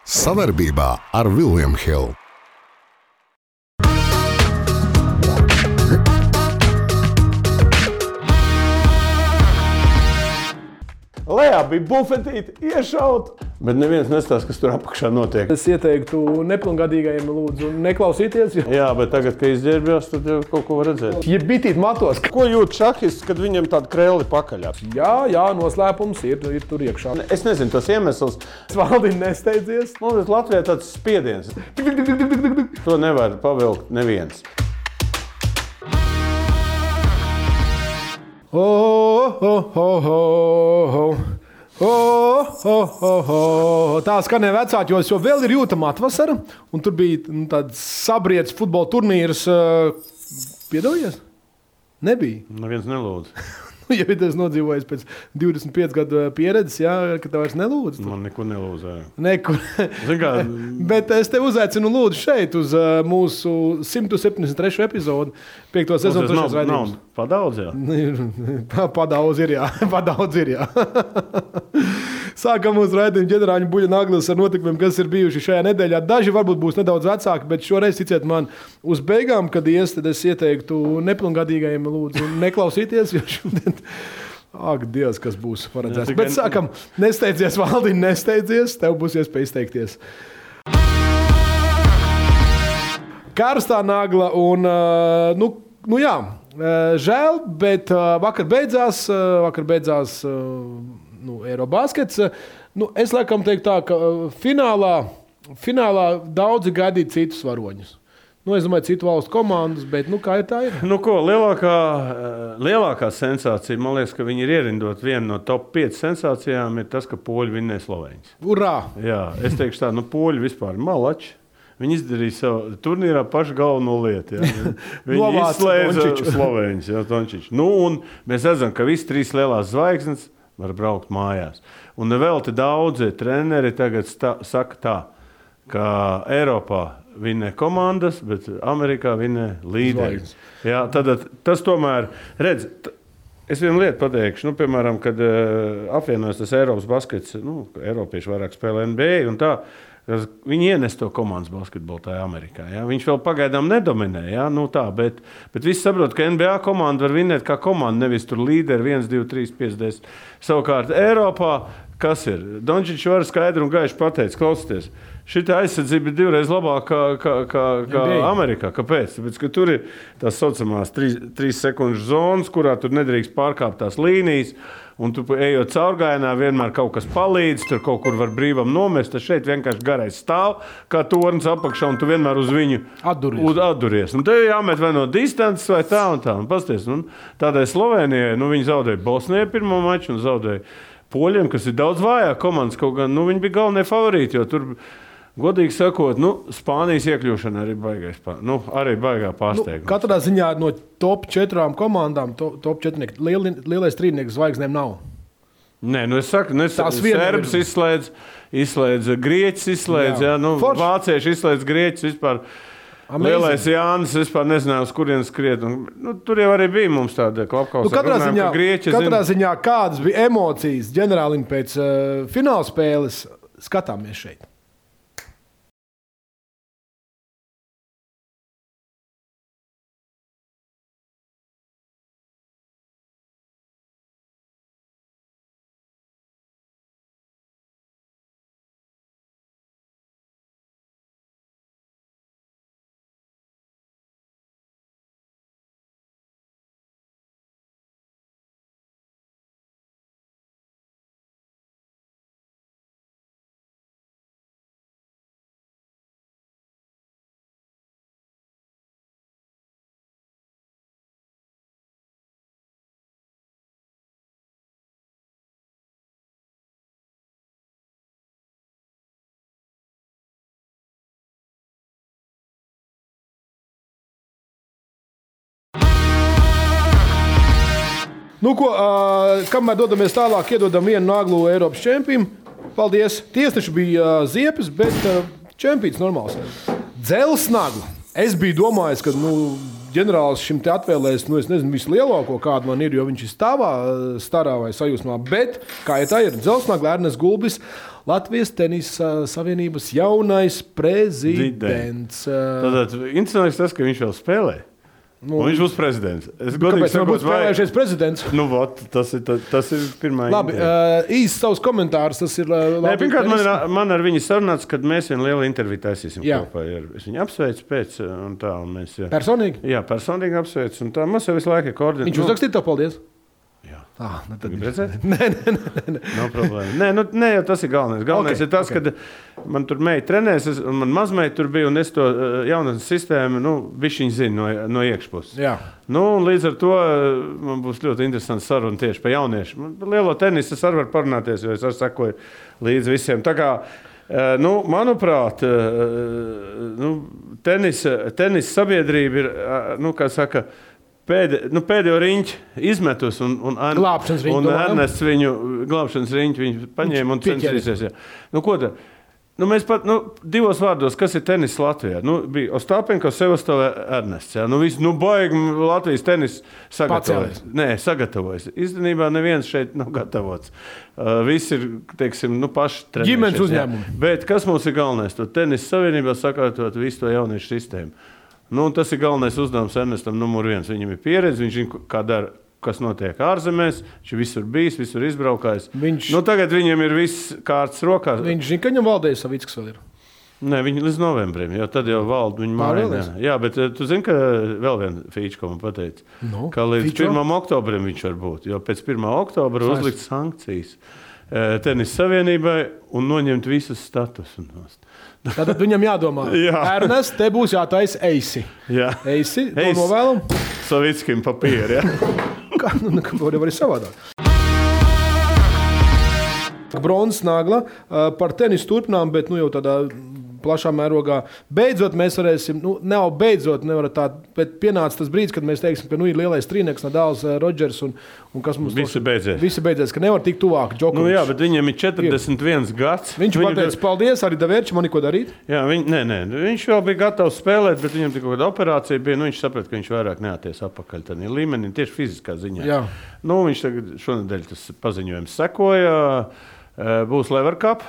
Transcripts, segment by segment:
Savarbībā ar William Hill. Lejā bija bufetīte, iešaut, bet neviens nestāsta, kas tur apakšā notiek. Es ieteiktu nepilngadīgajiem lūdzu neklausīties. Jā, bet tagad, kad izģērbjās, tad jau kaut ko var redzēt. Ja bitīt matos. Ko jūt šahists, kad viņam tāda krēli pakaļā? Jā, noslēpums ir tur iekšā. Es nezinu tos iemeslus. Valdiņ nesteidzies. Mums Latvijā tāds spiediens. To nevar pavilkt neviens. Tā skanēja vecākos, jo vēl ir jūtama atvasara, un tur bija tāds sabriedz futbola turnīrs. Piedalījies? Nebija. Neviens nelūdz. Ja es nodzīvoju pēc 25 gadu pieredzes, jā, ka tev vairs nelūdz. Man neko nelūdz. Nekur. Bet es tev uzaicinu lūdzu šeit uz mūsu 173. epizodu, 5. sezonu 3. raidījums. Padaudz, jā? Padaudz ir, jā. Sākam mūsu raidījumu ģenerāļu Buļļa Naglis ar notikumiem, kas ir bijuši šajā nedēļā. Daži varbūt būs nedaudz vecāki, bet šoreiz, ticiet man, uz beigām, kad ies, tad es ieteiktu nepilngadīgajiem lūdzu neklausīties, jo šodien, ak, Dievs, kas būs paredzēts. Bet sākam, nesteidzies, Valdiņ, nesteidzies, tev būs iespēja izteikties. Karstā nagla un, jā, žēl, bet vakar beidzās Eirobaskets. Es laikam teiktu tā, ka finālā daudzi gaidīja citus varoņus. Es domāju, citu valstu komandas, bet kā ir tā ir? Lielākā sensācija, man liekas, ka viņi ir ierindot vienu no top 5 sensācijām, ir tas, ka poļi vinnēja Slovēņus. Urā! Jā, es teikšu tā, poļi vispār malači. Viņi izdarīja savu turnīrā pašu galveno lietu. Viņi izslēdza Slovēņus, Tončiču. Un mēs redzam, ka visi 3 lielās zvaigznes var braukt mājās. Un vēl te daudzi treneri tagad saka tā, ka Eiropā vinnē komandas, bet Amerikā vinnē līderi. Jā, tad tas tomēr, redz, es vienu lietu pateikšu, piemēram, kad apvienojas tas Eiropas baskets, Eiropieši vairāk spēlē NBA un tā, viņi ienes to komandas basketbolu tajā Amerikā. Ja? Viņš vēl pagaidām nedominē, bet visi saprot, ka NBA komanda var vinnēt kā komanda, nevis tur līderi 1, 2, 3, 5, 10. Savukārt Eiropā, kas ir? Dončičs var skaidri un gaiši pateikt, klausieties, šita aizsardzība ir 2 reizes labāka kā Amerikā. Kāpēc? Tāpēc, ka tur ir tās saucamās 3 sekundžu zonas, kurā tur nedrīkst pārkāpt tās līnijas, un tu ejot caurgājienā, vienmēr kaut kas palīdz, tur kaut kur var brīvam nomest, tad šeit vienkārši garais stāv, kā tornis apakšā, un tu vienmēr uz viņu atduries. Un te jāmet vai no distances vai tā un tā. Un pasties, tādai Slovēnijai, viņi zaudēja Bosnijai pirmo maču un zaudēja Poļiem, kas ir daudz vājāk komandas, kaut gan, viņi bija galvenie favorīti, jo tur, godīgi sakot, Spānijas iekļūšana arī baigā pārsteigums. Katrā ziņā no top 4 komandām, top 4 lielais trīnieks zvaigznēm nav. Nē, es saku, Serbs izslēdz, Grieķis izslēdz, Vācieši izslēdz Grieķis vispār. Lielais Jānis vispār nezināja, uz kurienes skriet. Tur jau arī bija mums tāda klapkausa. Katrā ziņā kādas bija emocijas ģenerālim pēc fināla spēles, skatāmies šeit. Kamēr dodamies tālāk, iedodam vienu naglu Eiropas čempim. Paldies. Tiesneši bija ziepes, bet čempions normāls. Dzels nagla. Es biju domājis, ka ģenerālis šim te atvēlēs, es nezinu, vislielāko, kādu man ir, jo viņš ir starā vai sajūsmā. Bet, kā ja tā ir, Dzelsnagla, Ernests Gulbis, Latvijas tenisa savienības jaunais prezidents. Tātad interesants tas, ka viņš vēl spēlē. Un viņš būs prezidents. Kāpēc viņš būs spēlējušies prezidents? Tas ir pirmā labi, īsts savus komentārus. Tas ir labi. Pirmkārt, man ar viņu sarunāts, kad mēs vienu lielu interviju taisīsim kopā. Es viņu apsveicu pēc un tā. Un mēs, personīgi? Jā, personīgi apsveicu. Un tā mums jau visu laiku ir koordinēta. Viņš uzrakstīja to paldies? Jā. Tad gribi redzēt? Nē. Nav problēma. Nē, jau tas ir galvenais. Galvenais ir tas, ka man tur meita trenēs, un man mazmeita tur bija, un es to jaunatnes sistēmu, bišķiņ zinu no iekšpuses. Jā. Un līdz ar to man būs ļoti interesants saruna tieši par jauniešu. Lielo tenisu es arī varu parunāties, jo es arī sekoju līdz visiem. Tā kā, manuprāt, tenisa sabiedrība ir, kā saka, pēdējo riņķi izmetus, un Ernests viņu glābšanas riņķi viņu paņēma un censīsies. Ko tad? Mēs pat divos vārdos, kas ir tenis Latvijā? Bija Ostapenko, Sevastovē, Ernests. Baigi Latvijas tenis sagatavojas. Īstenībā neviens šeit nav gatavots. Visi ir, teiksim, paši trenējušies. Ģimenes uzņēmumi. Bet kas mums ir galvenais? To tenis savienībā sakārtot visu to jauniešu sistēmu. Tas ir galvenais uzdevums Ernestam numur 1. Viņam ir pieredze, viņš zina, kā dara, kas notiek ārzemēs, viņš visur bijis, visur izbraukājis. Tagad viņam ir viss kārtas rokās. Viņš zina, ka viņam Valdējs Savickis vēl ir. Nē, viņi līdz novembrim, jo tad jau valda viņa māja. Jā, bet tu zini, ka vēl viena fīča, ko man pateica, ka līdz 1. oktobrim viņš var būt, jo pēc 1. oktobra uzlikt sankcijas tenis savienībai un noņemt visus statusus. Tātad viņam jādomā. Ernest, te būs jātaisa eisi. Jā. Eisi, to novēlam. Savickim papīri, Kā var savādāk. Bronzas nagla par tenisu turpinām, bet jau tādā plašā mērogā. Beidzot mēs varēsim, nevar tā, bet pienāca tas brīdis, kad mēs teiksim, ka ir lielais trīnieks, Nadals, Rodžers un kas mums visi beidzies, ka nevar tikt tuvāk Džokovičs. Jā, bet viņam ir 41 gads. Viņš pateica, paldies, arī Davērči, man neko darīt. Jā, viņš vēl bija gatavs spēlēt, bet viņam tik kāda operācija bija, viņš saprata, ka viņš vairāk neaties apakaļ tādā līmenī, tieši fiziskā ziņā. Jā. Viņš tagad šonedēļ tas paziņojums sekoja. Būs Lever Cup,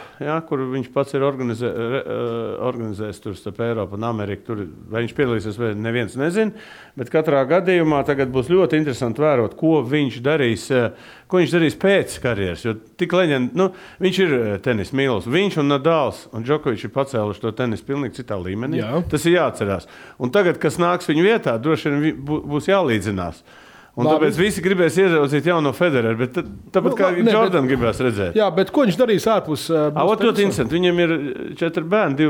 kur viņš pats ir organizējis tur starp Eiropu un Ameriku. Vai viņš piedalīsies, vai neviens nezina. Bet katrā gadījumā tagad būs ļoti interesanti vērot, ko viņš darīs pēc karjeras. Jo tik leģenda, viņš ir tenis mīlis. Viņš un Nadals un Džokovičs ir pacēluši to tenisu pilnīgi citā līmenī. Jā. Tas ir jāatcerās. Un tagad, kas nāks viņu vietā, droši vien būs jālīdzinās. Un tāpēc visi gribēs ieraudzīt jauno Federeru, bet tāpat kā Jordan gribēs redzēt. Jā, bet ko viņš darīs ārpus? Ļoti interesanti. Viņam ir 4 bērni,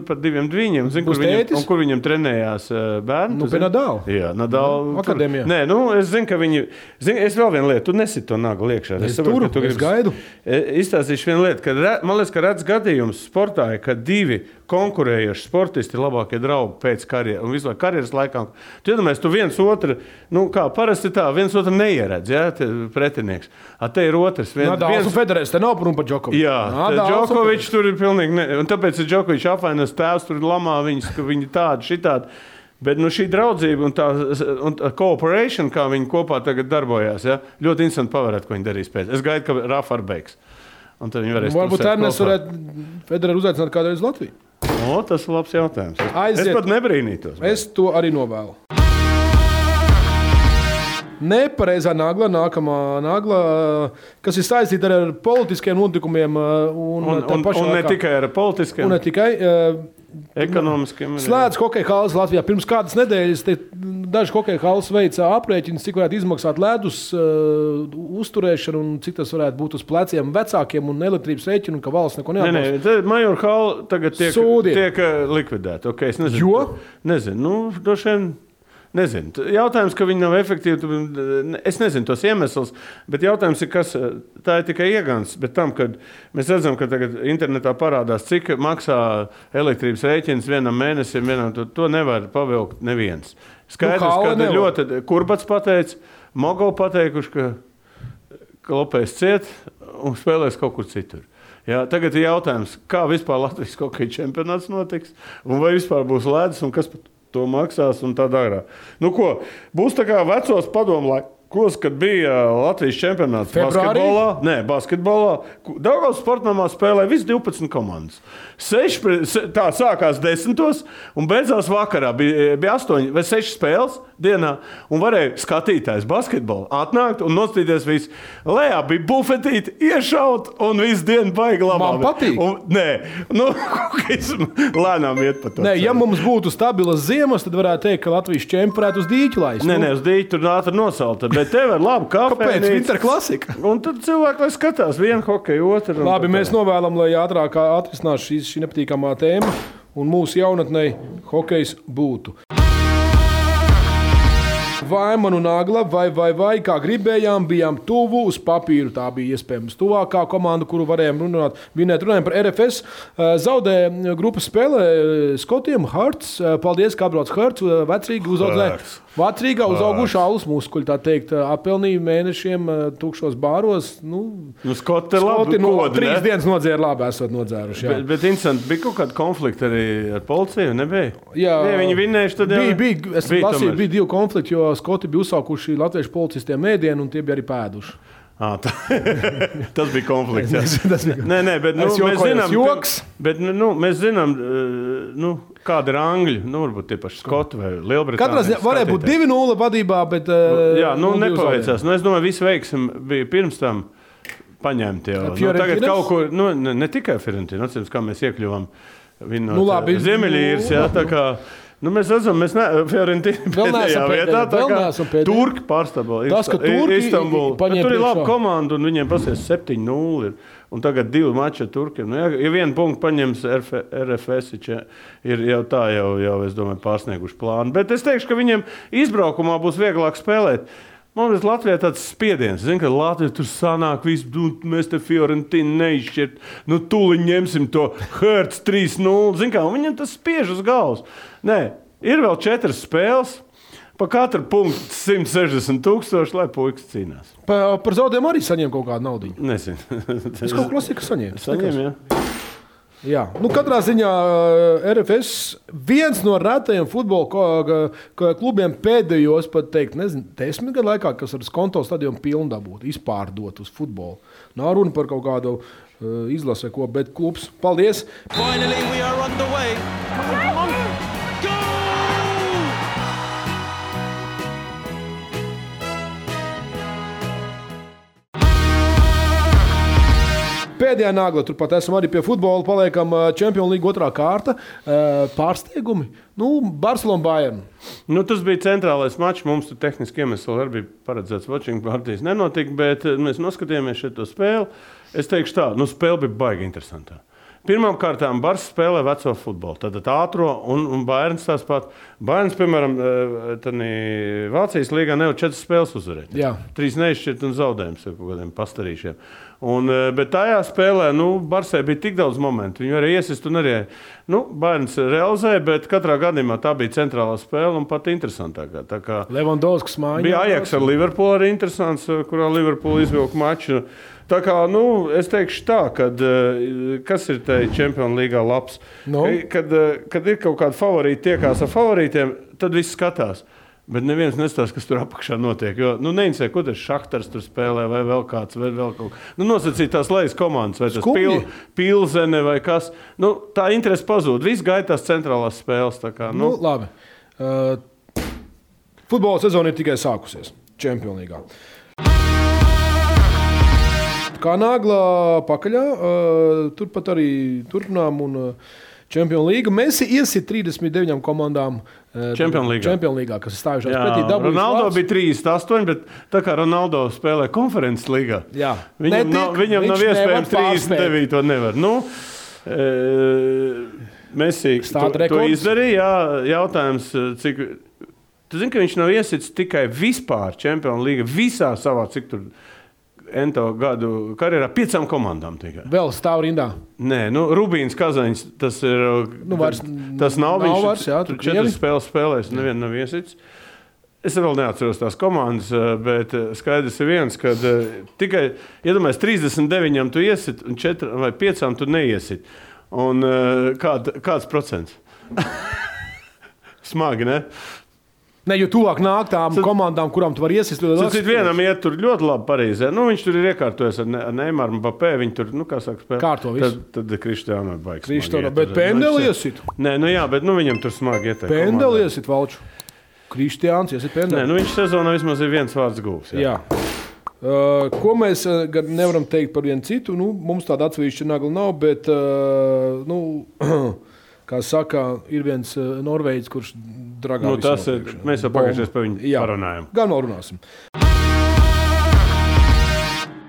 pat 2 dviņiem. Kur viņam trenējās bērni? Pie Nadala. Jā, Nadala. Akadēmijā. Nē, es zinu, ka viņi... Es vēl vienu lietu, tu nesit to naglu iekšā. Es gaidu. Izstāstīšu vienu lietu, man liekas, ka redz gadījums sportā, ka 2 konkurējoši sportisti ir labākie draugi pēc karjeras un visu laiku karjeras laikā. Tu iedomājies, tu viens otru, kā parasti tā, viens otru neieredz, pretinieks. Te ir otrs. Nadals un Federers, te nav runa par Džokoviču. Jā, Džokovičs tur ir pilnīgi, un tāpēc ir Džokovičs apvainos tēvs, tur lamā viņus, ka viņi tādi, šitādi. Bet šī draudzība un tā cooperation, kā viņi kopā tagad darbojās, ļoti interesanti pavērēt, ko viņi darīs pēc. Es gaidu, ka Rafa ar beigs. Un tad viņi varēs varbūt Ernest varētu Federeru uzaicināt kādreiz Latviju. Tas ir labs jautājums. Es pat nebrīnītos. Es to arī novēlu. Nepareizā nagla, nākamā nagla, kas ir saistīta ar politiskiem notikumiem. Un ne tikai ar politiskiem. Un ne tikai. Ekonomiskiem. Slēdz hokeja halas Latvijā. Pirms kādas nedēļas daži hokeja halas veica aprēķinus, cik varētu izmaksāt ledus uzturēšanu un cik tas varētu būt uz pleciem vecākiem un elektrības rēķinu, un ka valsts neko neatbalsta. Nē, Major hala tagad tiek likvidēta. Okay, es nezinu. Jo? Nezinu. Droši vien. Nezinu. Jautājums, ka viņi nav efektīvi, es nezinu tos iemeslus, bet jautājums ir, kas tā ir tikai iegans. Bet tam, kad mēs redzam, ka tagad internetā parādās, cik maksā elektrības rēķins vienam mēnesim, to nevar pavilkt neviens. Skaidrs, ka ļoti Kurbats pateica, Mogo pateikuši, ka Lopējs ciet un spēlēs kaut kur citur. Jā, tagad ir jautājums, kā vispār Latvijas hokeja čempionāts notiks, un vai vispār būs ledus, un kas to maksās un tā dārā. Būs tā kā vecos padomu kad bija Latvijas čempionāts basketbolā. Daugavas sportnamā spēlēja visi 12 komandas. Tā sākās 10. un beidzās vakarā. Bija 8 vai 6 spēles dienā, un varēja skatītājs basketbolu atnākt un nostīties visu. Lejā bija bufetīti, iešaut, un visu dienu baigi labā. Man patīk. Lēnām iet pa to. Nē, ja mums būtu stabilas ziemas, tad varētu teikt, ka Latvijas čempionātu uz dīķi laist. Nē, uz dīķi tur ātri nosalta, bet tev ir laba kafejnīca. Kāpēc? Winter klasika. Un tad cilvēki, lai skatās vienu hokeju, otru. Labi, mēs novēlam, lai ātrāk atrisinās šī nepatīkamā tēma un mūsu jaunatnei hokejs būtu. Vai man un Agla, vai, kā gribējām, bijām tuvu uz papīru. Tā bija iespējams tuvākā komanda, kuru varējām runājam par RFS. Zaudēja grupas spēlē Skotiem, Hearts. Paldies, ka atbrauc Hearts. Vecrīgā uzauguši alus muskuļi, tā teikt, apelnīja mēnešiem tukšos bāros. Skoti ir labi. 3 dienas nodzēra labi, esot nodzēruši. Bet interesanti, bija kaut kāda konflikta arī ar policiju, nebija? Jā. Ne, viņi vinnējuši tad jau? Bija 2 konflikti, jo Skoti bija uzsākuši latviešu policistiem ēdienu un tie bija arī pēduši. Tas bija konflikts. Nē, bet mēs zinām, kāda ir Angļi, varbūt tie paši Skoti vai Lielbritānija. Katrā ziņā varēja būt 2-0 vadībā, bet nepaveicās. Es domāju, visu veiksim bija pirms tam paņemti jau. Tagad kaut ko, ne tikai Fiorentina, atceros, kā mēs iekļuvām vinot Ziemeļīras, tā kā. Mēs redzam, Fiorentina pēdējā vietā, tā kā Turki pārstāvā Istanbulu. Tur ir laba komanda un viņiem pasies 7-0 un tagad 2 mači ar Turkiem. Ja 1 punktu paņems RFS, ir jau tā, es domāju, pārsnieguši plānu. Bet es teikšu, ka viņiem izbraukumā būs vieglāk spēlēt. Mums Latvijā tāds spiediens. Zinu, ka Latvija tur sanāk visu, mēs te Fiorentinu neizšķirt. Tūliņ ņemsim to Hearts 3-0. Zinu, kā viņam tas spiež uz galvas. Nē, ir vēl 4 spēles. Pa katru punktu 160,000, lai puikas cīnās. Par zaudējumu arī saņem kaut kādu naudu? Nezinu. Es kaut klasika saņēmu. Saņem, jā. Jā, katrā ziņā RFS viens no retajiem futbola klubiem pēdējos, pat teikt, 10 gadu laikā, kas ar skonto stadionu pilnu dabūt, izpārdot uz futbolu. Nav runa par kaut kādu izlase, ko, bet klubs. Paldies! Finally we are on the way. Come on. Pēdējā nagla, turpat esam arī pie futbola, paliekam Champions League 2. kārta. Pārsteigumi? Barcelona Bayern. Tas bija centrālais mačs, mums tur tehniski iemesli arī bija paredzēts watching partijas nenotika, bet mēs noskatījāmies šo spēli. Es teikšu tā, spēle bija baigi interesantā. Pirmām kārtām Barça spēlē veco futbolu, tātad ātro un Bayerns tās pat. Bayerns, piemēram, Vācijas līgā nevar 4 spēles uzvarēt. 3 neizšķirt un zaudējums ar kaut kādiem pastarīšiem. Bet tajā spēlē, Barçai bija tik daudz momentu. Viņi arī iesist un arī, Bayerns realizēja, bet katrā gadījumā tā bija centrālā spēle un pat interesantākā. Tā kā Levandovskis mājiņā. Bija Ajax ar Liverpoolu arī interesants, kurā Liverpoolu izvilka maču. Tā kā, es teikšu tā, kas ir te Champions Līgā labs? Kad ir kaut kādi favorīti tiekās ar favorītiem, tad viss skatās. Bet neviens nestās, kas tur apakšā notiek. Jo, neinteresē, ko tas Šahtars tur spēlē, vai vēl kāds, vai vēl kaut kā. Nosacīt tās lejas komandas, vai tas Pilzene vai kas. Tā interese pazūd. Viss gaitās centrālās spēles. Tā kā, Labi. Futbola sezona ir tikai sākusies Champions Līgā. Kā nagla pakaļā, turpat arī turpinām un Champions League. Messi iesit 39 komandām Champions Līgā, kas ir stājušās pretī dabūjis. Ronaldo bija 38, bet tā kā Ronaldo spēlē konferences līgā, viņam nav iespējams 39, nevar. Messi to izdarīja, jautājums, cik... Tu zini, ka viņš nav iesits tikai vispār Champions League, visā savā, cik tur... Ento gadu karjerā 5 komandām tikai. Vēl stāv rindā? Nē, Rubīns Kazaņš, tas ir... tas nav viņš, tur 4 spēles spēlēs, nevienu nav iesits. Es vēl neatceros tās komandas, bet skaidrs ir viens, kad tikai, iedomājies, 39 tu iesit un 4 vai 5 tu neiesit. Un kāds procents? Smagi, ne? Ne, jo tuvāk nāk tām komandām, kurām tu vari iesist. Vienam iet tur ļoti labi Parīzē. Viņš tur ir iekārtojies ar Neymaru un Mbappé. Viņi tur, kā saka, spēlē. Kārto visu. Tad Kristiāno baigs. Bet pendeli iesit. Nē, bet viņam tur smagi ieteikt. Pendeli iesit, Valču. Kristiāns iesit pendeli. Nē, viņš sezonā vismaz ir viens vārds gūs. Jā. Ko mēs nevaram teikt par vienu citu? Mums tāda atsevišķa nagla nav, bet, kā saka, ir viens Norvēģis, kurš dragā visu nopriekšā. Mēs jau pagājušajā par viņu parunājam. Gan vēl runāsim.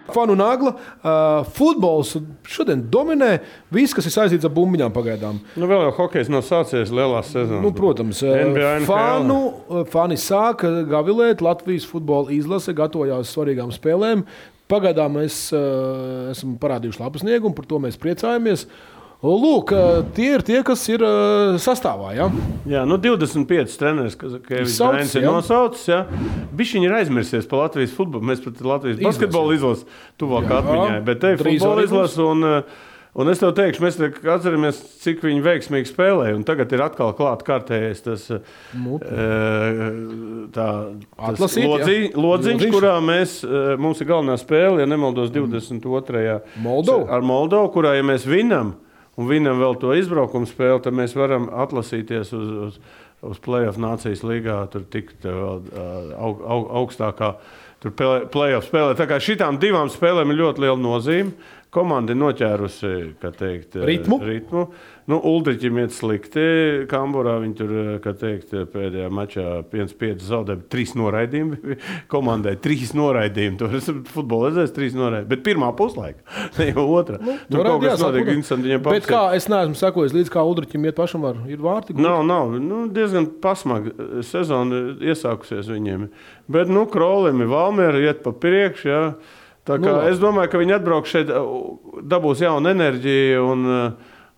Fanu nagla. Futbols šodien dominē. Viss, kas ir saistīts ar bumbiņām pagaidām. Vēl jau hokejs nav sācies lielās sezonas. Protams. Fani sāka gavilēt. Latvijas futbola izlase gatavojās svarīgām spēlēm. Pagaidām mēs esam parādījuši labu sniegumu, par to mēs priecājamies. Lūk, tie ir tie, kas ir sastāvā. Ja? Jā, 25 treneris, kas ir nosaucis. Ja? Bišķiņi ir aizmirsies par Latvijas futbolu. Mēs pat Latvijas basketbola izlases tuvāk atmiņai. Bet te ir futbola izlase. Un es tev teikšu, mēs atceramies, cik viņi veiksmīgi spēlēja. Un tagad ir atkal klāt kārtējais tas lodziņš, kurā mums ir galvenā spēle, ja nemaldos 22. ar Moldovu, kurā, ja mēs vinam, un vinam vēl to izbraukumu spēli, tad mēs varam atlasīties uz play-off Nācijas līgā, tur tikt augstākā play-off spēlē. Tā kā šitām divām spēlēm ir ļoti liela nozīme. Komanda ir noķērusi, kā teikt, ritmu. Uldriķim iet slikti. Kamburā viņi tur, kā teikt, pēdējā mačā 5-5 zaudēja 3 noraidījumi. Komandai 3 noraidījumi. Tur es futbolu redzēju 3 noraidījumi. Bet pirmā puslaika, ne jau otrā. Tur kaut kas notiek interesanti viņam papsīt. Bet kā, es neesmu sekojis līdz kā Uldriķim iet pašam ir vārti? Nav. Diezgan pasmagi sezona iesākusies viņiem. Bet, Krolim ir Valmiera iet pa priekšu, jā. Tā kā es domāju, ka viņi atbrauks šeit, dabūs jaunu enerģiju,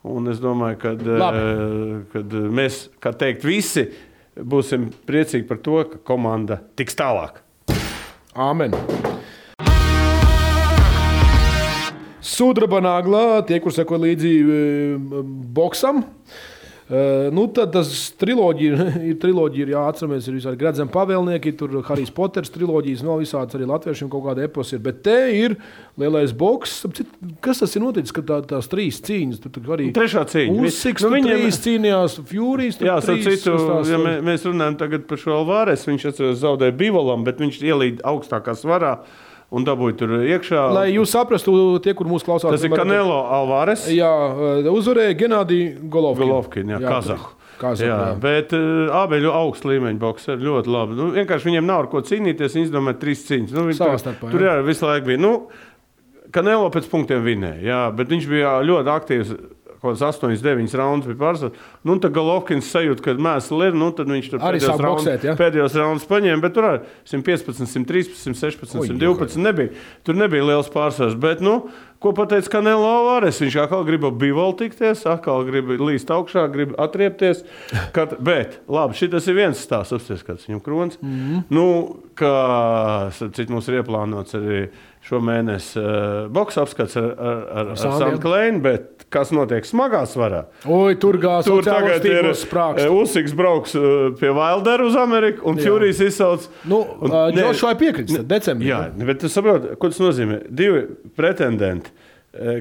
un es domāju, kad mēs, kā teikt, visi būsim priecīgi par to, ka komanda tiks tālāk. Āmen. Sudraba nagla, tie, kur seko līdzi boksam. Tad tas triloģija ir jāatceramies, ir visādi Gradzena pavēlnieki, tur Harijs Poters triloģijas, vēl visāds arī latviešiem kaut kāda epos ir, bet te ir lielais boks. Kas tas ir noticis, ka tās 3 cīņas? Tur arī trešā cīņa. Usiks, tur 3 cīnījās, Furijas, tur 3. Ja mēs runājam tagad par šo Alvarez, viņš zaudēja Bivolam, bet viņš ielīd augstākā svarā. Un dabūja tur iekšā. Lai jūs saprastu, tie, kur mūs klausās. Tas ir Canelo Alvarez. Jā, uzvarēja Genādiju Golovkin, Kazahu. Jā, bet abi ir augsta līmeņa bokseri, ļoti labi. Vienkārši viņiem nav ar ko cīnīties, viņi izdomāja 3 cīņas. Tur jā, visu laiku bija. Canelo pēc punktiem vinēja, jā, bet viņš bija ļoti aktīvs. Kaut kāds 8-9 raundus bija pārsvarā. Tad Golovkins sajūta, kad mēsli ir, tad viņš tur pēdējos raundus paņēma, bet tur arī 115, 113, 116, 112 nebija. Tur nebija liels pārsvars, bet, ko pateica Canelo Alvarez? Viņš atkal grib Bivolu tikties, atkal grib līst augšā, grib atriepties. Bet, labi, šitas ir viens stāsts, apsties, kāds viņam krons. Kā cit mums ir ieplānots arī šo mēnesi boksa apskats ar Sandu Kleinu, bet kas notiek smagā svarā? Tur tagad ir Usiks brauks pie Wilderu uz Ameriku, un Furijas izsauc. Džošai piekritis decembrī. Jā, bet tu saproti, ko tas nozīmē? 2 pretendenti,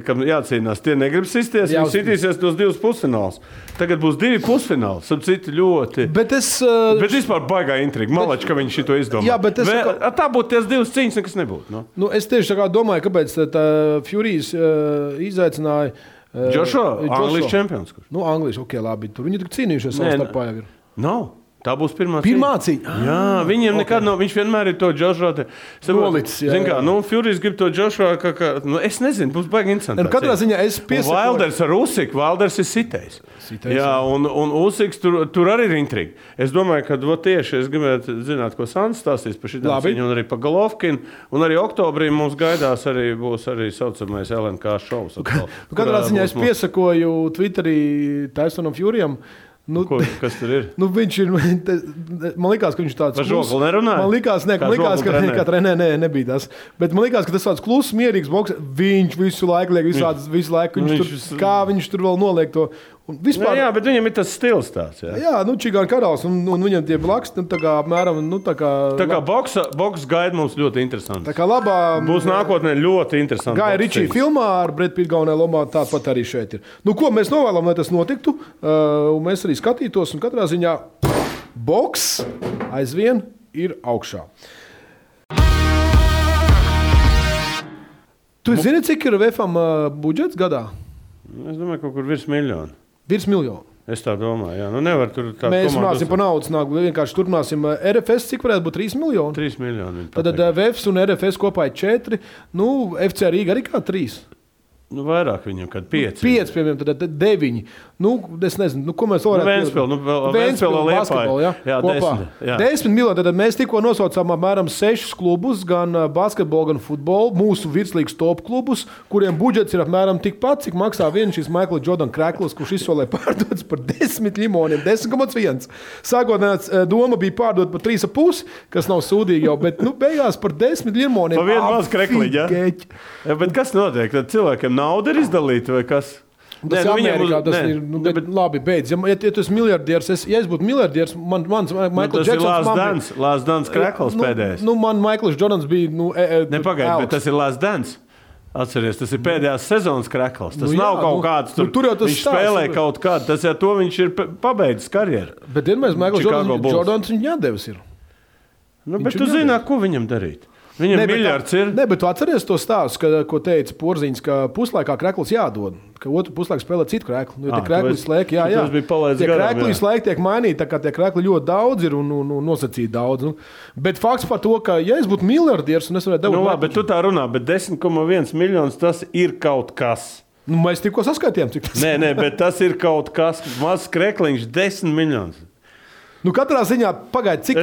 kam jācīnās, tie negrib sisties, viņi sitīsies tos 2 pusfinālus. Tagad būs 2 pusfināli, citi ļoti. Bet vispār baigā intriga. Malači, ka viņi šito izdomā. Jā, bet tā būtu ties 2 cīņas, nekas nebūtu. Es tieši tā kā domāju, kāpēc tā Furijas izaicināja Joshua, Anglijas čempions. Anglijas, labi. Tur viņi tik cīnījušies savā starpā jau ir. Nav. Tā būs pirmā cīņa. Jā, viņiem nekad nav. Viņš vienmēr ir to Joshua. Nolicis. Zin kā, Furijas grib to Joshua, es nezinu, būs baigi interesanti. Katrā ziņā es piesakoju. Wilders ar Usiku, Wilders ir sitējis. Jā, un Usiks tur arī ir intriga. Es domāju, ka tieši es gribētu zināt, ko Sants stāstīs par šitām cīņu, un arī par Golovkinu. Un arī oktobrī mums gaidās būs arī saucamais LNK šovs. Katrā ziņā es piesakoju Twitterī Tysonam Furiyam. Kas tur ir? Viņš ir. Man likās, ka viņš tāds. Par žokli nerunāja? Man likās, ka trenē nebija tas. Bet man likās, ka tas tāds kluss, mierīgs boks. Viņš visu laiku liek visādas, visu laiku. Kā viņš tur vēl noliek to. Vispār, jā, bet viņam ir tas stils tāds. Jā, Čigāna karalis, un viņam tie blaks, tā kā apmēram, tā kā boks gaida mums ļoti interesanti. Tā kā labā... Būs nākotnē ļoti interesanti. Gaja Ričija filmā ar Brad Pitt galvenajā lomā tāpat arī šeit ir. Ko mēs novēlam, lai tas notiktu, un mēs arī skatītos, un katrā ziņā boks aizvien ir augšā. Tu zini, cik ir VFam budžets gadā? Es domāju, kaut kur virs miljonu. Virs miljonu. Es tā domāju, jā. Nevar tur tā mēs runāsim par naudas nāklu. Vienkārši turpināsim RFS, cik varētu būt 3 miljoni? 3 miljoni. Tad VFs un RFS kopā ir 4. FC Rīga arī kā 3. Vairāk viņam, kad 5. 5, piemēram, tad 9. Es nezinu, ko mēs varētu... Ventspils basketbolu, jā, kopā. 10 miljoni, tad mēs tikko nosaucām apmēram 6 klubus, gan basketbolu, gan futbolu, mūsu virslīgas top klubus, kuriem budžets ir apmēram tikpat, cik maksā viens šis Michael Jordan krekls, kurš izsolē pārdodas par 10 limoniem, 10,1. Sākotnēs doma bija pārdot par 3,5, kas nav sūdīgi jau, bet beigās par 10 limoniem. Pa vienu maz krekliņu, jā? Bet kas notiek? Tad cilvēkiem nauda ir izdalīta vai kas? Tas ir Amerikā, tas ir, bet labi, beidz. Ja tu esi miljardieris, ja es būtu miljardieris, mans Michael Jacksons... Tas ir Last Dance krekls pēdējais. Man Michaels Jordans bija... Nepagaid, bet tas ir Last Dance. Atceries, tas ir pēdējās sezonas krekls. Tas nav kaut kāds tur. Viņš spēlē kaut kādu, tas ar to viņš ir pabeidzis karjeru. Bet vienmēr Michaels Jordans viņa jādevis ir. Bet tu zini, ko viņam darīt. Viņam miljards ir. Bet tu atceries to stāstu, ko teica Porziņš, ka puslaikā krekls jādod, ka otru puslaiku spēlē citu kreklu. Jo tie krekli slēg, jā. Tas bija palaists garām. Tie krekli slēg tiek mainīti, tā kā tie krekli ļoti daudz ir un nosacīti daudz. Bet fakts par to, ka ja es būtu miljardieris un es varētu dabūt... Labi, bet tu tā runā, bet 10,1 miljonus tas ir kaut kas. Mēs tikko saskaitījām, cik tas Nē, bet tas ir kaut kas. Mazs krekliņš 10 miljonus. Katrā ziņā pagaid, cik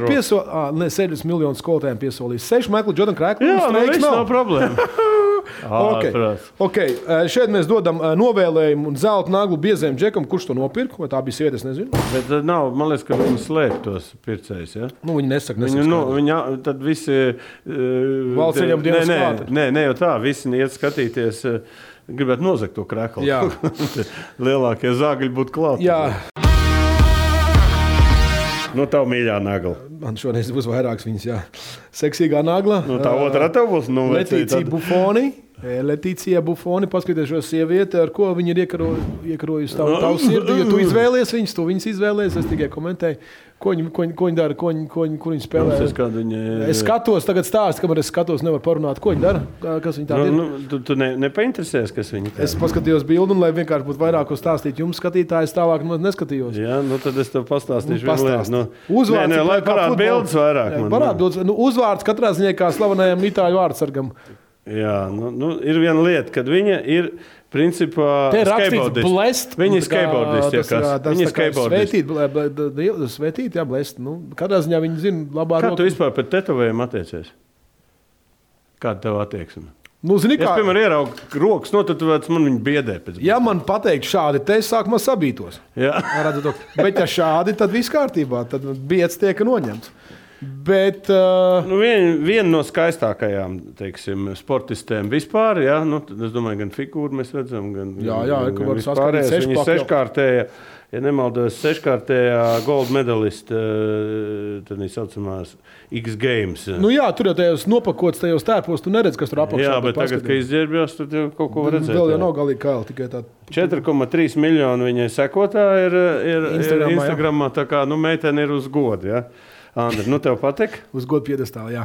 piesolīja? 70 miljonus skolotājiem piesolīja. 6 Michael Jordan krekli. Jā, viss nav problēma. Okay. Šeit mēs dodam novēlējumu un zelta naglu biezēm džekam, kurš to nopirka, vai tā bija sieviete, es nezinu. Bet nav, man liekas, ka viņi slēp tos pircējus, ja? Viņi nesaka. Tad visi... Valsts ieņem dienas klāta. Nē, jau tā, visi iet skatīties, gribētu nozagt to kreklu. Jā. Lielākie zāgļi būtu klāt. Jā. Tavu mīļā nagla. Man šoreiz būs vairāks viņas, jā. Seksīgā nagla. Tā otrā tev būs. Letīcija Bufoni, paskaties šo sievieti, ar ko viņa ir iekarojusi tavu sirdi. Ja tu izvēlies viņas, tu viņas izvēlies, es tikai komentēju. Ko viņi dara, kur viņi spēlē. Es skatos, tagad stāstu, kamēr es skatos, nevaru parunāt, ko viņi dara. Kas viņi tādi ir. Tu nepainteresēs, kas viņi tādi. Es paskatījos bildu, un lai vienkārši būtu vairāk ko stāstīt jums skatītājs, tālāk neskatījos. Jā, tad es tev pastāstīšu. Uzvārds. Lai parāda bildes vairāk. Parāda bildes. Uzvārds katrā ziņā kā slavenajam itāļu vārdsargam. Jā, ir viena lieta, kad viņa ir principā skateboardists. Viņa ir skateboardists. Viņa ir skateboardists. Svētīt, jā, blest. Katrā ziņā viņi zina labā roka. Kā tu vispār pēc tetovējumu attiecies? Kāda tev attieksme? Zini, es, piemēram, ieraugu rokas, tad man viņa biedē. Ja man pateikt šādi, te es sākumā sabītos. Jā. Bet ja šādi, tad viss kārtībā. Tad bieds tiek noņemts. Bet, viena no skaistākajām, teiksim, sportistēm vispār, jā, es domāju, gan figūru mēs redzam, gan var saskatīt viņa seškārtējā, ja nemaldos, seškārtējā gold medalista, tad viņa saucamās X Games. Tur jau tajos nopakots, tajos tērpos, tu neredz, kas tur apakšā. Jā, bet tagad, kad izģērbjās, tad jau kaut ko var redzēt. Vēl jau nav galīgi kaili, tikai tā. 4,3 miljoni viņai sekotāji ir Instagramā, tā kā, meitene ir uz godu, jā. Andri, tev patīk? Uz godu piedestālu, jā.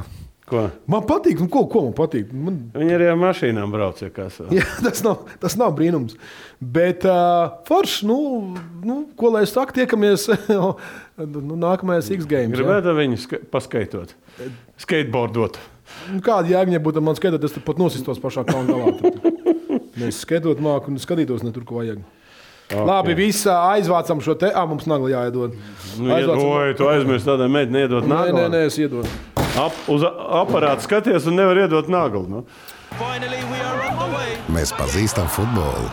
Ko? Man patīk, ko man patīk? Viņi arī ar mašīnām brauc, ja kas. Jā, tas nav brīnums. Bet forši, ko lai es saku, tiekamies nākamajās X Games. Gribētu viņu paskaitot, skateboardot. Kāda jēga būtu man skaitot, es pat nosistos pašā kalna galā. Mēs skaitot māku un skatītos ne tur, ko vajag. Okay. Labi, visi aizvācam šo te. Mums nagla jāiedod. Tu aizmirsti tādai meiteni iedot naglu? Nē, es iedodu. Uz aparātu skaties un nevar iedot naglu. Mēs pazīstam futbolu.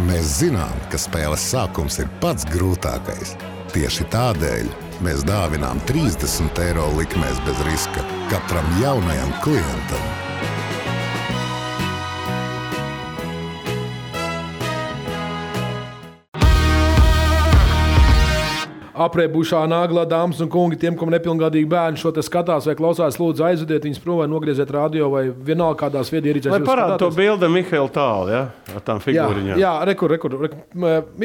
Mēs zinām, ka spēles sākums ir pats grūtākais. Tieši tādēļ mēs dāvinām 30 € likmēs bez riska katram jaunajam klientam. aprēbušā Nagla dāmas un kungi, tiem, kam nepilngadīgi bērni šo te skatās vai klausās, lūdzu aizvediet viņus prom vai nogrieziet radio vai vienalga kādās viedierīcēs. Lai parāda to bildi Mihaila Tāla, ja? Ar tām figūriņām. Jā, rekur.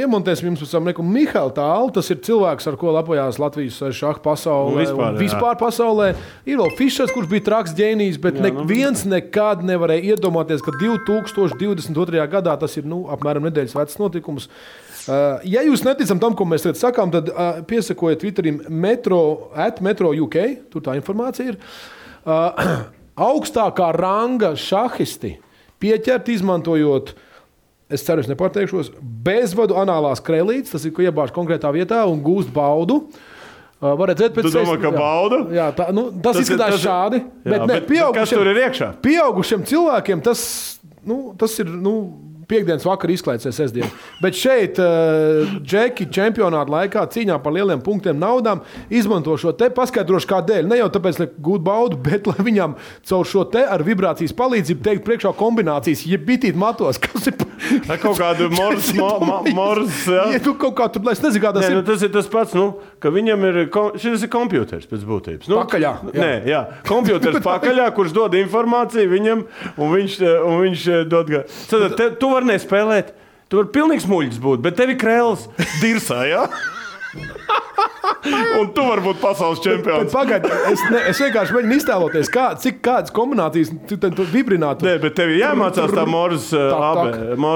Iemontēsim jums pēc tam Mihaila Tāla, tas ir cilvēks, ar ko lepojās Latvijas šaha pasaulē un vispār pasaulē. Ir vēl Fišers, kurš bija traks ģēnijs, bet neviens nekad nevarēja iedomāties, ka 2022. gadā tas ir apmēram nedēļas vecs notikums. Ja jūs neticat tam, ko mēs tagad sakām, tad piesakojiet Twitterim Metro UK, tur tā informācija ir. Augstākā ranga šahisti pieķert izmantojot, es ceru, es nepārteikšos, bezvadu anālās krēlītes, tas ir, ko iebāž konkrētā vietā un gūst baudu. Var redzēt pēc tu domā, ka bauda? Jā, tas izskatās šādi. Jā, bet kas tur ir iekšā? Pieaugušiem cilvēkiem tas ir... Piektdienas vakarā izklaides sestdien. Bet šeit Džeki čempionāta laikā cīņā par lieliem punktiem naudām izmanto šo te, paskaidrošu kādēļ. Ne jau tāpēc, lai gūtu baudu, bet lai viņam caur šo te ar vibrācijas palīdzību teikt priekšā kombinācijas, ja bitīt matos, kas ir... Kaut kādu mors, jā. Ja tu kaut kā tur, lai es nezinu, kā tas ir. Tas ir tas pats, ka viņam ir, šis ir kompjuters pēc būtības. Pakaļā. Jā. Kompjuters pakaļā, kurš dod informāciju viņam, un viņš dod... Tu vari nespēlēt, tu vari pilnīgs muļķis būt, bet tev ir krēls dirsā, jā? Un tu vari būt pasaules čempions. Pagaid, es vienkārši mēģinu iztēloties, kādas kombinācijas tu vibrinātu. Nē, bet tev ir jāmācās tā Morse AB.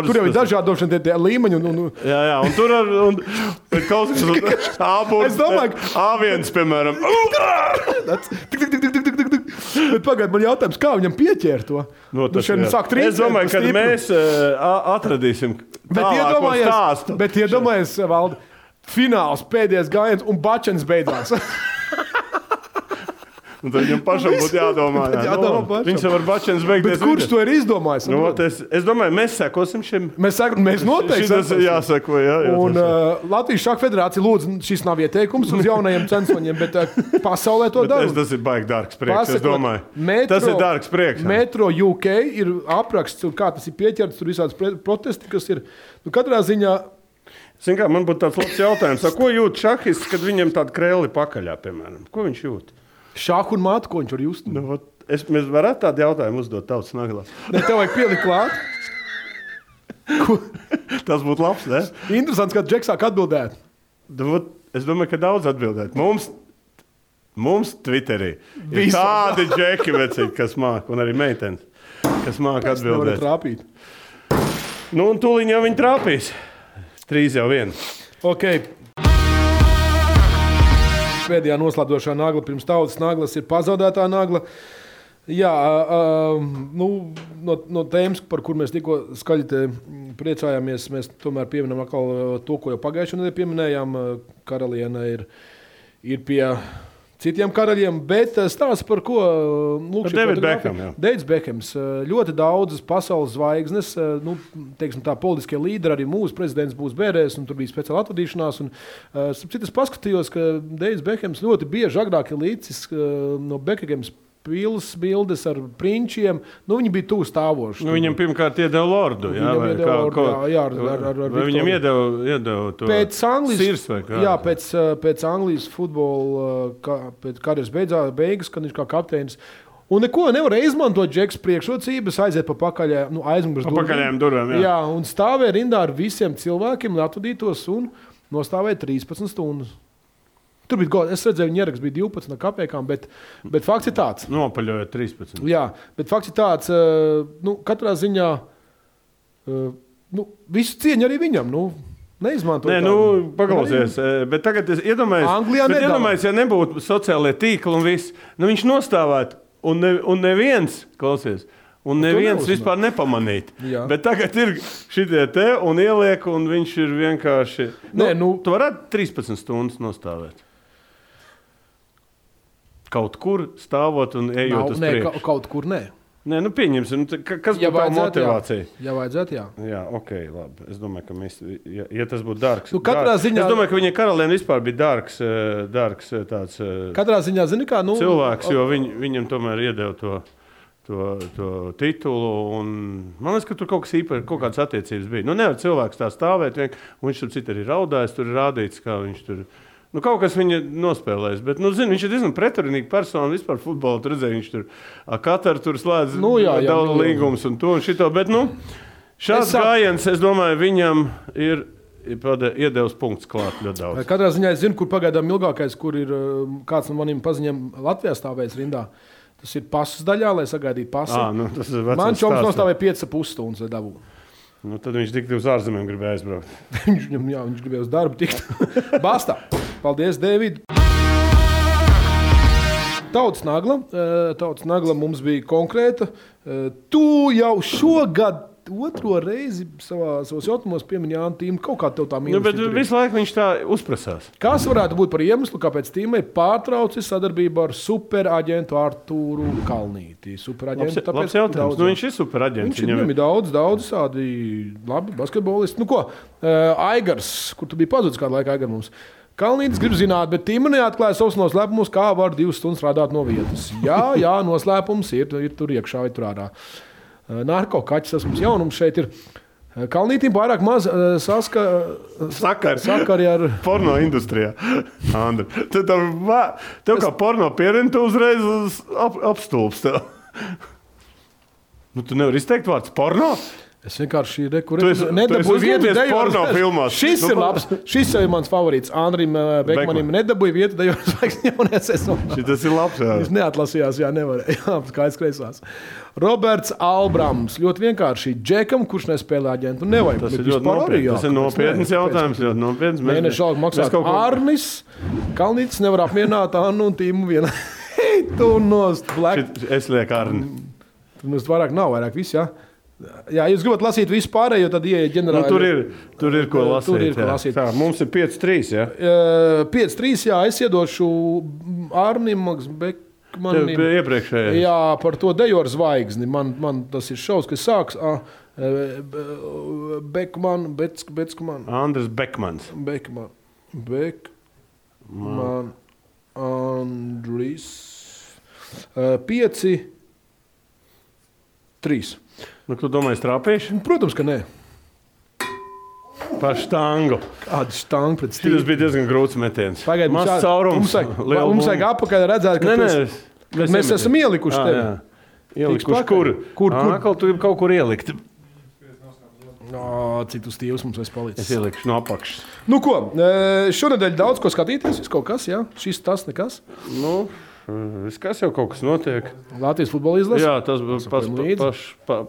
Tur jau ir dažādošana tie līmeņi. Jā, un tur ir kaut kas es domāju, A1, piemēram. Bet pagaid, man jautājums, kā viņam pieķēr to? Es domāju, ka mēs atradīsim tālāko stāstu. Bet iedomājies, Valdi, fināls, pēdējais gājiens un bačens beidzās. Un tad viņam pašam būtu jādomā. Viņš jau var bačens beigties. Bet kurš to ir izdomājis? Es domāju, mēs sekosim šim. Mēs noteikti sekosim. Jāseko, jā. Un Latvijas šaha federācija lūdzu, šis nav ieteikums uz jaunajiem censoņiem, bet pasaulē to dara. Tas ir baigi dārgs prieks, es domāju. Tas ir dārgs prieks. Metro UK ir apraksts, kā tas ir pieķerts, tur visādas protesti, kas ir. Katrā ziņā... Zin kā, man būtu tāds labs jautājums. Ko jūt šahists, kad viņam tāda krēli pakaļā, piemēram? Ko viņš jūt? Šahu un mātu, ko viņš var just? Mēs varētu tādu jautājumu uzdot Tautas Naglā. Ne, tev vajag pielikt klāt. Tas būtu labs, ne? Interesants, kad Džeks sāk atbildēt. Es domāju, ka daudz atbildēt. Mums Twitterī ir tādi Džeki vecīgi, kas māk, un arī meitenes, kas māk atbildēt. Trāpīt. Un tūliņ jau viņi trāpīs. 3 jau 1. Ok. Pēdējā noslēdzošā nagla pirms Tautas Naglas ir pazaudētā nagla. Jā, no tēmas, par kur mēs tikko skaļi priecājāmies, mēs tomēr pieminam atkal to, ko jau pagājušajā nedēļā pieminējām. Karaliene ir pie citiem karaļiem, bet stāsts par ko? Deivids Bekhems. Ļoti daudzas pasaules zvaigznes, teiksim tā, politiskie līderi, arī mūsu prezidents būs bērēs, un tur bija speciāla atvadīšanās. Es paskatījos, ka Deivids Bekhems ļoti bieži agrāk ir līdzis no Bekhams pils bildes ar prinčiem. Viņi bija tuvu stāvoši. Viņam pirmkārt iedeva lordu. Viņam iedeva to sirs vai kā. Jā, pēc Anglijas futbola karjeras beigas, kad viņš kā kapteinis. Un neko nevarēja izmantot Džeks priekšrocības, aiziet pa pakaļējām durvīm. Jā, un stāvēja rindā ar visiem cilvēkiem, atvadītos un nostāvēja 13 stundas. Tur bija gods. Es redzēju, viņa ieraksts bija 12 kapekām, bet fakts ir tāds. Nopaļojot 13. Jā, bet fakts ir tāds, katrā ziņā, visu cieņu arī viņam, neizmantot. Paklausies, bet tagad es iedomājos, ja nebūtu sociālie tīkli un viss, viņš nostāvētu, un neviens, klausies, un neviens vispār nepamanīt. Jā. Bet tagad ir šitie te un ieliek, un viņš ir vienkārši... Tu varētu 13 stundas nostāvēt. Kaut kur stāvot un ejot uz priekšu. Kaut kur nē. Nē, pieņemsim. Kas būtu tā motivācija? Ja vajadzētu, jā. Jā, ok, labi. Es domāju, ka mēs, ja tas būtu dārgs. Ziņā... Es domāju, ka viņa karaliene vispār bija dārgs tāds katrā ziņā, zini kā, cilvēks, jo viņam tomēr iedeva to titulu. Un, man liekas, ka tur kaut kas īpaši, kaut kādas attiecības bija. Nevar cilvēks tā stāvēt, un viņš tur citu arī raudājis, tur ir rādīts, kā viņš tur Nu, kaut kas viņa nospēlēs, bet, zinu, viņš ir diezgan pretrunīgi persona vispār futbolā. Tu redzēji, viņš tur Kataru tur slēdz daudz līgumus un to un šito, bet, šāds gājiens, es domāju, viņam ir iedevis punkts klāt ļoti daudz. Katrā ziņā es zinu, kur pagaidām ilgākais, kur ir kāds no maniem paziņiem Latvijā stāvēs rindā. Tas ir pasas daļā, lai sagaidītu pasi. Man čoms nostāvēja 5,5 stundas, lai dabūtu. Tad viņš tik uz ārzemēm gribēja aizbraukt. viņš gribēja uz darbu tikt. Bastā. Paldies, Dēvid. Tautas nagla mums bija konkrēta. Tu jau šogad otro reizi savos jautājumos piemini Jānu Tīmu. Kaut kā tev tā mīnus. Bet visu laiku viņš tā uzprasās. Kas varētu būt par iemeslu, kāpēc Tīmai pārtraucis sadarbību ar superaģentu Artūru Kalnīti? Superaģentu, labs jautājums. Viņš ir superaģents. Viņam ir daudz tādi labi basketbolisti. Aigars, kur tu biji pazudis kādu laiku Aigar mums. Kalnītis grib zināt, bet Tīma neatklāja savus noslēpumus, kā var 2 stundas strādāt no vietas. Jā, noslēpums ir tur iekšā vai tur ārā. Narkokaķis, tas mums jaunums šeit ir. Kalnītim pārāk maz sakari ar porno industrijā. Andri, tev kā porno pierini, tu uzreiz apstulps tev. Tu nevari izteikt vārds porno? Es vienkārši nedabūju vietu porno filmās. Šis ir labs. Šis ir mans favorīts. Andrim Bekmanim nedabūju vietu dejos zvaigznes jaunajā sezonā. Šitas ir labs, jā. Viņš neatlasījās, nevarēja. Jā, skaidrs kreisās. Roberts Albrams. Ļoti vienkārši. Džekam, kurš nespēlē aģentu, nevajag. Tas ir ļoti nopietns. Tas ir nopietns jautājums. Ļoti nopietns. Mēneša algu maksāt Arnis. Kalnītis nevar apmierināt Annu un Tīmu vienā. Hei, tu nost. Es lieku Arni. Mums vairāk nav, vairāk viss, jā. Jā, jūs gribat lasīt visu pārējo, tad ieiet ģenerāli. Tur ir ko lasīt. Tā, mums ir 5-3, jā? 5-3, jā, es iedošu Arnim Bekmanim. Iepriekšējais. Jā, par to dejoru zvaigzni. Man tas ir šaus, kas sāks. Bekman. Andris Bekmans. Bekman. Andris. 5-3. Tu domāji, strāpējuši? Protams, ka nē. Par štangu. Kāda štanga pret stīvu? Tas bija diezgan grūts metiens. Pagaid, Maz caurums. Mums vajag apakaļ redzēt, ka mēs esam ielikuši tevi. Ielikuši kur? Tu gribi kaut kur ielikt. Cik tu stīvs mums vairs palicis? Es ielikšu no apakšas. Šonedēļ daudz ko skatīties, kaut kas, jā? Šis tas nekas? Kas jau kaut kas notiek. Latvijas futbola izlase? Jā, tas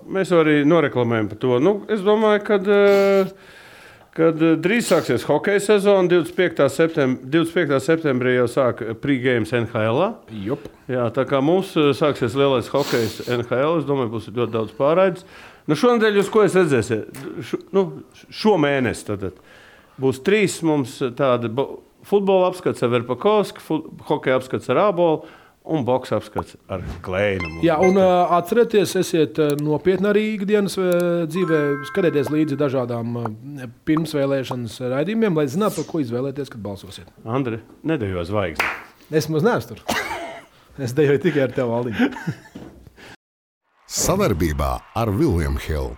mēs arī noreklamējam par to. Es domāju, kad drīz sāksies hokeja sezona, 25. septembrī jau sāk pre-games NHL. Jā, tā kā mums sāksies lielais hokejs NHL, es domāju, būs ļoti daudz pārraides. Šonedēļ jūs ko es redzēsiet? Šo mēnesi tad būs 3 mums tādi futbola apskats ar Verpakovski, hokeja apskats ar Ābolu un boksa apskats ar Kleinu. Jā, un atcerieties, esiet nopietni arī ikdienas dzīvē, skatieties līdzi dažādām pirmsvēlēšanas raidījumiem, lai zinātu, par ko izvēlēties, kad balsosiet. Andri, nedejo zvaigzni. Es maz neesmu tur. Es dejoju tikai ar tevi, Valdiņu. Sadarbībā ar William Hill.